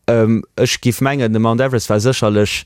Ech giff mengen de Mount Everest war sécherlech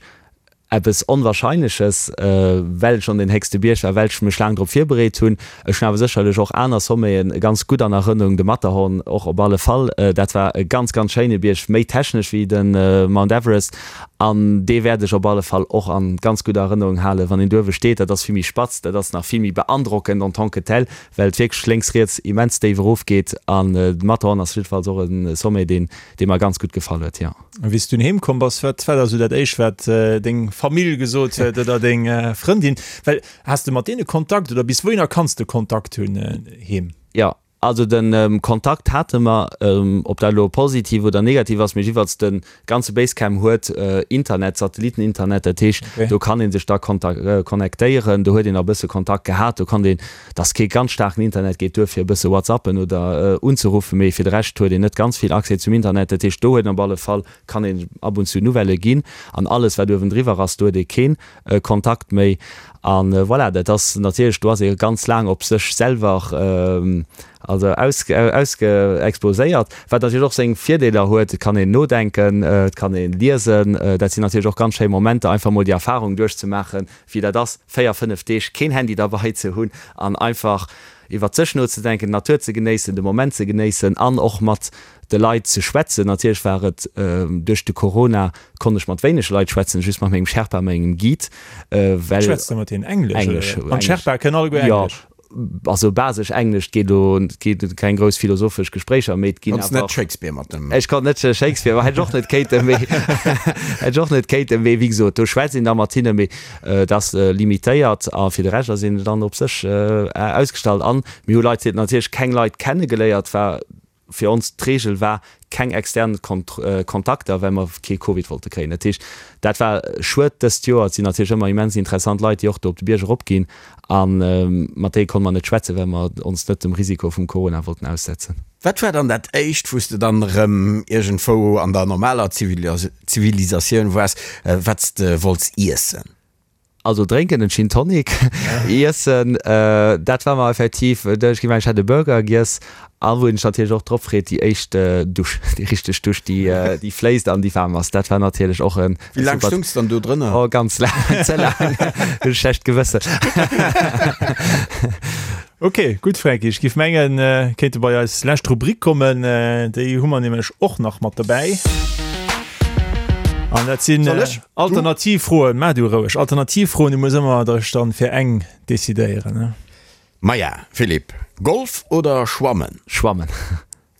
eppes Onwahrscheinleches, well et schonn deen héchste Bierg war, well ech mech laang drop virbereet hunn. Ech hunn awer sécherlech och aner Sommeten ganz gutt an Erënnerung, de Matterhorn och op alle Fall, dat war e ganz ganz schéine Bierg, méi technesch wéi de Mount Everest An dee wäert ech op alle Fall och a ganz gudder Erënnerung halen. Wann een do uewe steet, dat ass vill méi spatz, dat ass nach vill méi beandrockend en tant que tel, well et wierklech lénks, riets immens déif erofgeet. An de Matterhorn ass jiddefalls och e Sommet, deen, dee mer ganz gutt gefall huet, jo. A wéi s du dunn heem komm bass, wat war da sou dat éischt, wat deng Famill gesot huet oder deng Frëndin? Well has de mat deene Kontakt oder bis wouhinner kanns de Kontakt hunn heem? Jo. Also de Kontakt hate mer, ob dat elo positiv oder negativ ass, mee jiddwerfalls de ganze Basecamp huet Internet, Satelliteninternet, dat heescht do kann ee sech da connectéieren, do huet een e bësse Kontakt gehat, do konnt een, et ass kee ganz staarken Internet, geet duer fir e bësse whatsappen oder unzeruffen, mee fir de Rescht huet een net ganz vill Accès zum Internet, dat heescht do huet een op alle Fall, kann een ab und zu Nouvellë ginn an alles wat uewendriwwer ass, do huet ee keen Kontakt méi an voilà, dat ass natierlech, do ass ee ganz laang op sech selwer also ausge exposéiert, wat natierlech och seng Virdeeler huet, et kann een nodenken, et kann ee liesen, dat sinn natierlech och ganz schéi Momenter, einfach mol déi Erfarung duerchzemaachen, wéi dat ass, 4, 5 Deeg keen Handy derbei ze hunn an einfach iwwert sech nozedenken, d'Natur ze genéissen, de Moment ze genéissen an och mat de Leit ze schwätzen. Natierlech war et duerch de Corona konnt ech mat wéineg Leit schwätzen, just mat mengem Sherpa, mengem Guide, well. Schwätzt de mat hinnen Englesch? Englesch. An d'Sherpae kënnen alleguer Englesch? Jo, also basesch Englesch. Et geet elo, et geet keng grouss philosophesch Gespréicher, mee et ginn awer. Konns net Shakespeare mat dem. Ech konnt net Shakespeare, ma hätt ech och net kéinten, mee hätt ech och net kéinten, mee wéi gesot, do schwätzt een da mat hinnen, mee et ass limitéiert a fir de Rescht ass een dann op sech ausgestallt. An mir hu Leit, natierlech keng Leit kennegeléiert, war Fir ons d'Reegel war, keng extern Kontakter, well mer kee Covid wollte kréien. Dat heescht, dat war schued dëst Joer. Et sinn natierlech ëmmer immens interessant Leit, déi och do op de Bierg eropginn a mat déi konnte mer net schwätzen, well mer ons net dem Risiko vum Corona wollten aussetzen. Wat war dann dat éischt, wou s de dann erëm iergendwou an der normaler Zivilisatioun waars, wat s de wollts iessen? Also drénken en Gin Tonic, iessen, dat war mer effektiv, ech géif mengen ech hätt e Burger giess a wou een sech natierlech och drop freet, déi éischt Dusch, déi richteg Dusch, déi déi fléisst an déi waarm ass, dat war natierlech och en Wéi laang stoungs de dann do drënner? Oh ganz laang, ze laang, hunn e schlecht Gewëssen. Ok, gutt Franky, ech giff mengen kéinte bei eis lescht Rubrik kommen, déi hu mer nämlech och nach mat dobäi. An dat sinn Alternativfroen, maach du roueg, Alternativfroen, du muss ëmmer dech dann fir eng decidéieren, ne? Maja, Philippe, Golf oder Schwammen? Schwammen.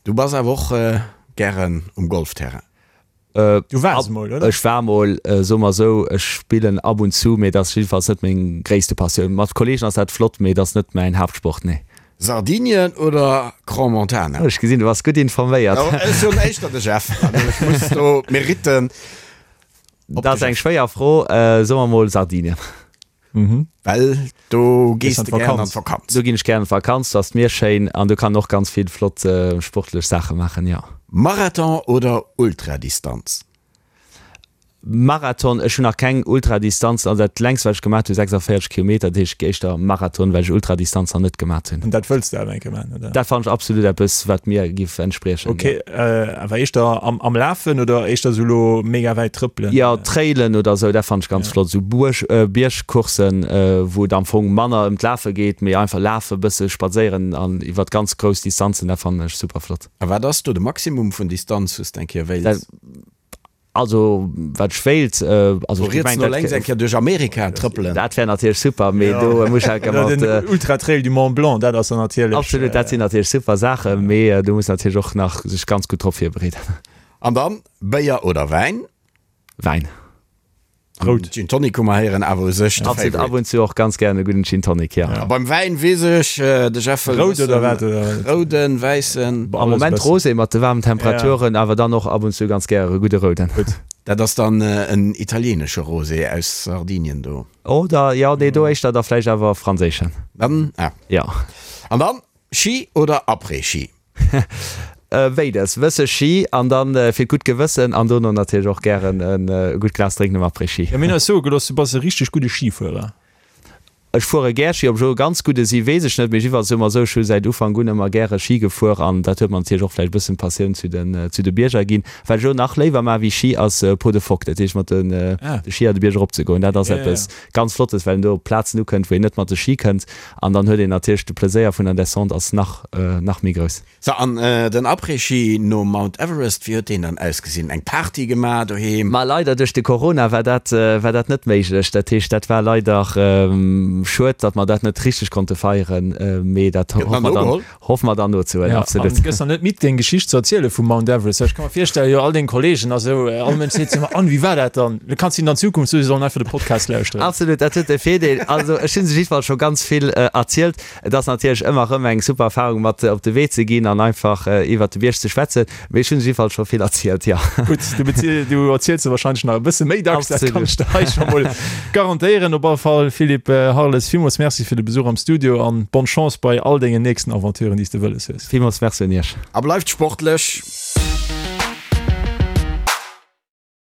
Du bass awer och gären um Golfterrain. Du waars emol, oder? Ech war mol, soe mer esou, ech spillen ab und zu, mee et ass jiddefalls net meng gréisste Passioun. Mat Kolleegen ass dat flott, mee et ass net mäin Haaptsport, nee. Sardinien oder Crans-Montana? Ech gesinn, du bass gutt informéiert. Jo, ech hunn éischter de Jeff, also ech muss do d'Meritten op de Dat ass eng schwéier Fro, soe mer mol Sardinien. Well do gees de gären an d'Vakanz. Do ginn ech gären an d'Vakanz, do ass d'Mier schéin an do kann een och ganz vill flott sportlech Saache maachen, jo. Marathon oder Ultradistanz? Marathon, ech hunn nach keng Ultradistanz, also dat längst wat ech gemaat hunn 46 Kilometer, dat heescht éischter Marathon, well ech Ultradistanz nach net gemaat hunn. An dat wëlls de awer eng Kéier maachen, oder? Dat fannen ech absolut eppes wat mir giff entspriechen, jo. Ok, awer éischter am Lafen oder éischter sou lo mega wäit trëppelen? Jo, Trailen oder sou, dat fannen ech ganz flott, sou Buerg, Biergcoursen, wou et am Fong manner ëm d'Lafe geet, mee einfach lafe, bësse spadséieren an iwwert ganz grouss Distanzen, dat fannen ech super flott. A wat ass do de Maximum vun Distanz wou s de eng Kéier wéilts? Also wat ech wéilt, also ech riets no lénks eng Kéier duerch Amerika trëppelen. Dat wär natierlech super, mee do muss ech mat. Den Ultratrail du Mont Blanc, dat ass dann natierlech. Absolut, dat sinn natierlech super Saachen, mee do muss natierlech och nach sech ganz gutt drop virbereeden. An dann, Béier oder Wäin? Wäin. Rout. Gin Tonic hu mer héieren, awer u sech de Favorite. Ab und zu och ganz gären e gudden Gin Tonic, jo. A beim Wäin weess ech, de Jeff wëll Rout oder wat? Wëssen, rouden, wäissen? Am Moment Rosé mat de waarmen Temperaturen, awer dann och ab und zu ganz gäre e gudde rouden. Gutt. Dat ass dann en italienesche Rosé aus Sardinien do. Oder, jo, nee, do éischter da vläicht awer franséischen. Dann, ah. Jo. An dann Ski oder Après-Ski? Béides, wësse Ski an dann fir d'gutt Gewëssen an dono natierlech och gären e gutt Glas drénken um Après-Ski. Jo, mir hunn eis soe gelooss, du bass e richteg gudde Schifuerer. Ech fuere gär Ski, ob ech elo e ganz gudde si weess ech net, mee jiddwerfalls soe mer esou, ech hu säit Ufank un ëmmer gäre Ski gefuer an dat huet mer natierlech och vläicht e bëssen d'Passioun zu den zu de Bierger ginn. Wat ech elo nach léiwer maache wéi Ski ass Peau de Phoque, dat heescht mat de Skier de Bierg erop ze goen. Dat ass eppes ganz Flottes, well een do op Plazen ukënnt, wou een net mat de Ski kënnt an dann huet een natierlech de Pleséier vun der Descente ass nach nach méi grouss. So, an den Après-Ski nom Mount Everest, wéi huet deen dann ausgesinn? Eng Party gemaach doheem? Ma leider duerch de Corona war dat war dat net méiglech. Dat heescht, dat war leider. Schued, datt mer dat net richteg konnte feieren, mee dat hoffe mer dann, hoffe mer dann nozehuelen, absolut. An gëss dann net midd, deng Geschicht ze erziele vum Mount Everest? Well ech ka mer virstellen, jo all deng Kollegen a sou, all Mënsch seet jo ëmmer, An, wéi war dat dann? Du kanns hinnen an Zukunft soen, si sollen einfach de Podcast lauschteren. Absolut, dat huet e Virdeel. Also ech hu se jiddefalls scho ganz vill erzielt. Et ass natierlech ëmmer erëm eng super Erfarung, mat op de Wee ze ginn an einfach iwwert de Bierg ze schwätzen. Mee ech hunn jiddefalls scho vill erzielt, jo. Gutt, du beziel, du erziels se wahrscheinlech nach e bësse méi dacks, dat kann ech der hei scho mol garantéieren. Op alle Fall, Philippe Harles, villmools Merci fir de Besuch am Studio an bonne Chance bei all dengen nächsten Aventuren, déi s de wëlles hues. Villmools Merci un Iech. A bleift sportlech!